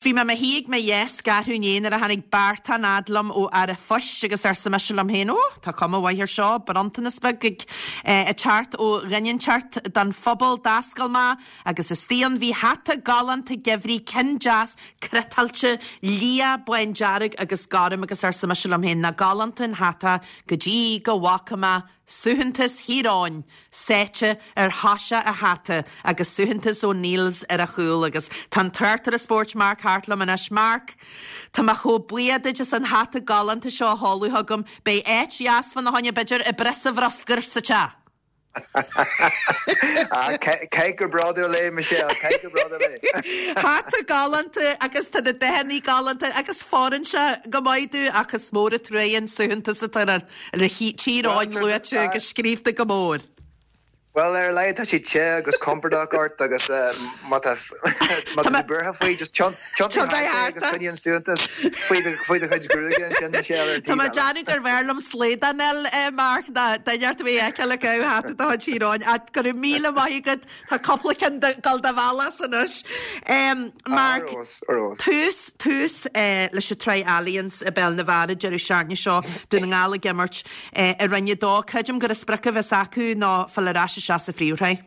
Bhí mé i mo shuí ag mo dheasc arú inné nuair a tháinig beartán fhad liom ó fhear an phoist agus arsa mise liom féin, Ó, tá cuma mhaith air seo, bronntanas beag ag teacht ó dhuine inteacht don phobal. D'oscail mé agus istigh ann bhí hata galánta geimhridh, ceann deas cniotáilte, liath, bándearg agus gorm agus arsa mise liom féin, nach galánta an hata go dtí go bhfaca mé Suaitheantas Thír Eoghain sáite ar thoiseach an hata agus suaitheantas O'Neills ar a chúl agus tá an tráchtaire spóirt Mark Harte liom anois. Mark, tá mé chomh buíoch duit as an hata galánta seo a sheoladh chugam. Beidh áit dheas fána choinne b'fhéidir i bpriosa bhruscair sa teach. Caith go bródúil é, Michelle, caith go bródúil é. Hata galánta agus tá na dathanna galánta agus fóireann sé go maith domh ach is mór an truaighe an suaitheantas atá air. Le Tír Eoghain luaite agus scríobhta go mór. Bhuel, ar a laghad tá sé te agus compordach ort agus má tá tú buartha faoi, just tiontaigh thart é agus coinnigh an suaitheantas faoi do chuid gruaige ansin, Michelle, ar an taobh eile. Tá mé ag déanamh gurbh fhearr liom slaghdán a fháil, Mark, ná duine ort a bheith a fheiceáil ag caitheamh hata de chuid Thír Eoghain. Ach go raibh míle maith agat, tá cúpla ceann ag dul do bhealach anois. Mark, tús, tús leis an tsraith Allianz i bPeil na bhFear an deireadh seachtaine seo, Dún na nGall ag imirt i Roinn 2. Creidim gur an sprioc a bheas acu ná fáil ar ais isteach sa phríomhshraith.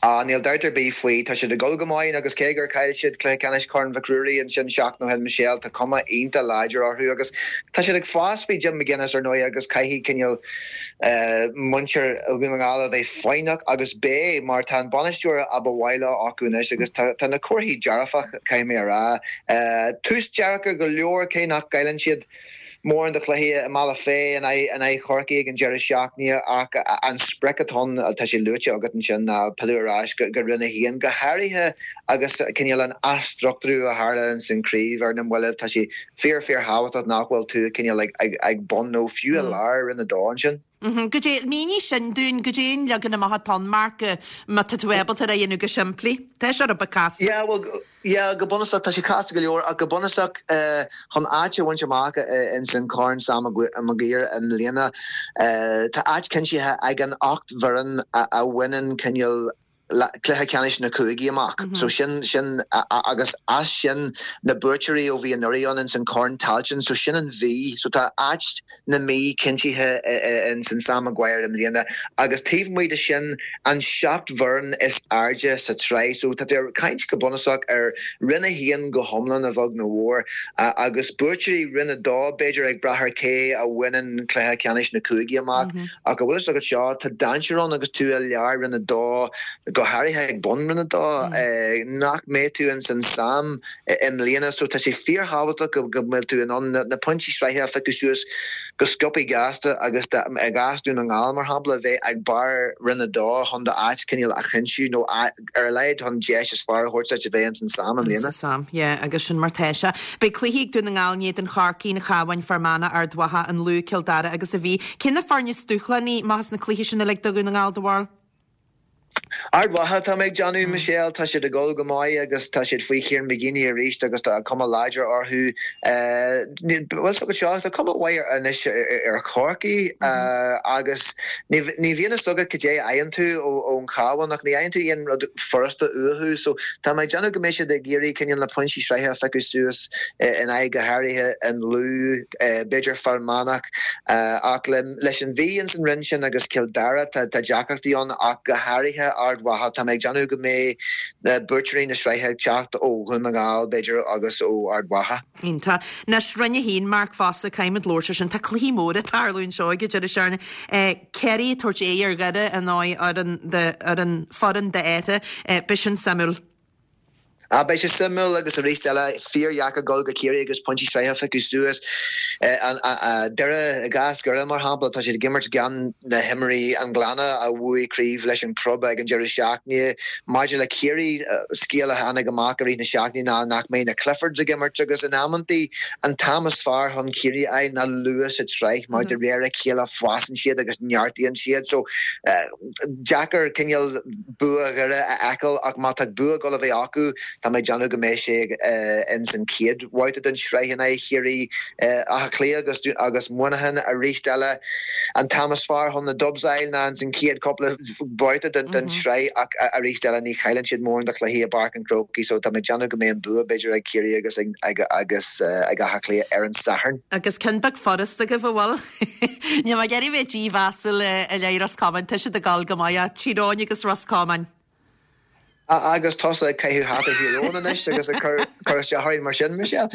Ah, níl dabht ar bith faoi. Tá siad ag dul go maith agus cé gur chaill siad cluiche ceannais Chorn Mhic Ruairí ansin seachtain ó shin, Michelle, tá cuma iontach láidir orthu agus tá siad ag fás faoi Jim McGuinness ar ndóigh agus caithfidh cineál muintir Dhún na nGall a bheith foighneach agus beidh mar tá an bainisteoir a ba mhaith leo acu anois agus tá na comharthaí dearfach, caithfidh mé a rá. Tús deacair go leor cé nach gcailleann siad mórán de chluichí i mBealach Féich in aghaidh Chorcaí ag an deireadh seachtaine ach an sprioc atá ann, tá sé luaite agat ansin, ná pilleadh ar ais go Roinn 1, go háirithe agus cineál an athstruchtúrú a tharla ins an chraobh ar na mallaibh. Tá sé fíor fíor thábhachtach nach bhfuil tú cineál ag bun nó fiú i lár Roinn 2 ansin. Goidé, mínigh sin dúinn, goidé an leagan amach atá ann, Mark, má tá tú ábalta é a dhéanamh go simplí. Tá sé rud beag casta. Yeah, bhuel, yeah, go bunúsach, tá sé casta go leor, ach go bunúsach, chun áit a bhaint amach ins an Corn Sam Maguire i mbliana, tá áit cinntithe ag an 8 bhfoireann a bhaineann cineál cluiche ceannais na cúigí amach. So sin, sin, agus as sin na buaiteoirí ó bhí anuraidh ann ins an Corn Tailteann, so sin an Mhí. So tá áit na Mí cinntithe ins an Sam Maguire i mbliana agus taobh amuigh de sin an 7 bhfoireann is airde sa tsraith. So tá tú ag caint go bunúsach ar Roinn 1 go hiomlán a bheag nó a mhór agus buaiteoirí Roinn 2 b'fhéidir ag brath ar cé a bhaineann cluiche ceannais na cúigí amach. Ach an bhfuil fhios agat seo, tá dainséar ann agus tú i lár Roinn 2, go háirithe ag bun Roinn 2, nach mbeidh tú ins an Sam i mbliana. So tá sé fíorthábhachtach go mbeidh tú in ann na pointí sraithe a phiocadh suas go sciobthaí gasta agus i gcás Dún na nGall, mar shampla, bheith ag barr Roinn 2 chun d'áit cineál a chinntiú nó ar a laghad chun deis is fearr a thabhairt duit a bheith ins an Sam i mbliana. Ins an Sam, yeah, agus sin mar tá sé. Beidh cluichí ag Dún na nGall in éadan Chorcaí, an Chabháin, Fear Manach, Ard Mhacha, an Lú, Cill Dara agus an Mhí. Cé na foirne is dúshlánaí amach as na cluichí sin uilig do Dhún na nGall, do bharúil? Ard Mhacha tá mé ag déanamh, Michelle. Tá siad ag dul go maith agus tá siad faoi Kieran McGeeney arís agus tá cuma láidir orthu. Bhfuil fhios agat seo, tá cuma mhaith anois ar Chorcaigh agus ní bhíonn fhios agat cad é a fhaigheann tú ón Chabhán ach ní fhaigheann tú aon rud furasta uathu. So tá mé ag déanamh go mbeidh siad ag iarraidh cineál na pointí sraithe a phiocadh suas in aghaidh go háirithe an Lú, b'fhéidir Fear Manach ach leis an Mhí ins an roinn sin agus Cill Dara tá deacrachtaí ann ach go háirithe Ard Mhacha. Tá mé ag déanamh go mbeidh buaiteoirí na sraithe ag teacht ó Dhún na nGall b'fhéidir agus ó Ard Mhacha. Iontach. Anois, Roinn 1, Mark fosta, caithfimid labhairt ar sin. Tá cluichí móra ag tarlú anseo ag an deireadh seachtaine. Ciarraí ag tabhairt aghaidh ar Dhoire in aghaidh fhoireann, foireann d'Fheartha. Beidh sin suimiúil. Ah, beidh sé suimiúil agus arís eile, fíordheacair dul go Ciarraí agus pointí sraithe a phiocadh suas. Doire, i gcás Dhoire mar shampla, tá siad ag imirt gan na himreoirí an Ghleanna a bhuaigh craobh leis an gclub ag an deireadh seachtaine. Maidir le Ciarraí, scéal a tháinig amach i rith na seachtaine ná nach mbeidh na Cliffords ag imirt agus in amantaí an t-am is fearr chun Ciarraí a fháil ná luath sa tsraith mar de réir a chéile fásann siad agus neartaíonn siad. So deacair cineál bua Dhoire a fheiceáil ach má tá bua ag dul a bheith acu. Tá mé ag déanamh go mbeidh sé ins an chéad bhabhta den tsraith in aghaidh Chiarraí. Áth Cliath agus agus Muineachán arís eile. An t-am is fearr chun na Dubs a fháil ná ins an chéad cúpla babhta den tsraith ach arís eile ní chailleann siad mórán de chluichí i bPáirc an Chrócaigh so tá mé ag déanamh go mbeidh an bua b'fhéidir ag Ciarraí agus ag agus ag Áth Cliath ar an Satharn. Agus ceann beag furasta agaibh, an bhfuil? Níl mé ag iarraidh bheith dímheasúil i leith Ros Comáin, tá siad ag dul go maith ach Tír Eoghain agus Ros Comáin. Agus tusa ag caitheamh hata Thír Eoghain anois agus ag cur isteach orainn mar sin, Michelle.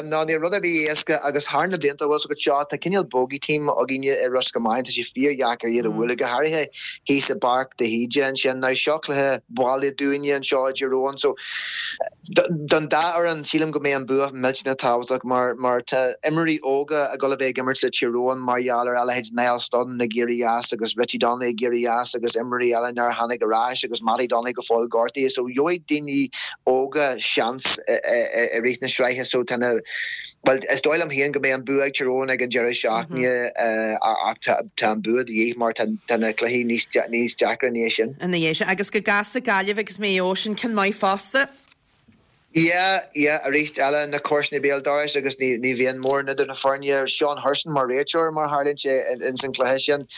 Ná níl rud ar bith éasca agus thar na blianta, bhfuil 's agat seo, tá cineál bogey team againne i Ros Comáin, tá sé fíordheacair iad a bhualadh, go háirithe thíos i bPáirc de hÍde ansin. Now seo cluiche baile dúinne anseo i dTír Eoghain so Don dá fhoireann, sílim go mbeidh an bua millteanach tábhachtach mar mar tá imreoirí óga ag dul a bheith ag imirt le Tír Eoghain mar gheall ar a leithéid Niall Studdon ag éirí as agus Richie Donnelly ag éirí as agus imreoirí eile nár tháinig ar ais agus Mattie Donnelly go fóill gortaithe so gheobhaidh daoine óga seans i rith na sraithe so tá na Bhuel, is dóigh liom féin go mbeidh an bua ag Tír Eoghain ag an deireadh seachtaine ach tá an bua de dhíth mar tá na cluichí níos deacra ina dhiaidh sin. Ina dhiaidh sin. Agus go gcasfaidh Gaillimh agus Maigh Eo, sin ceann maith fosta. Yeah, yeah, arís eile, na comharsana béal dorais agus ní bhíonn mórán idir na foirne. Seán Hurson mar réiteoir mar tharlaíonn sé ins an cluiche sin.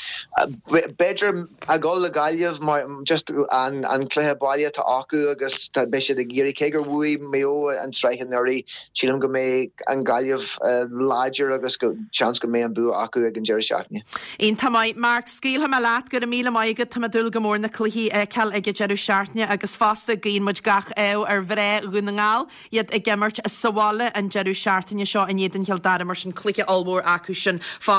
B'fhéidir a dhul le Gaillimh mar just an cluiche baile atá acu agus beidh siad ag iarraidh, cé gur bhuaigh Maigh Eo an tsraith anuraidh, Sílim go mbeidh an Ghaillimh láidir agus go seans go mbeidh an bua acu ag an deireadh seachtaine. Iontach maith. Mark, scaoilfidh mé leat. Go raibh míle maith agat. Tá mé ag dúil go mór na cluichí a fheiceáil ag an deireadh seachtaine agus fosta guíonn muid gach ádh ar mhná Dhún na nGall, iad ag imirt sa bhaile an deireadh seachtaine seo in éadan Chill Dara mar sin cluiche ollmhór acu sin fosta.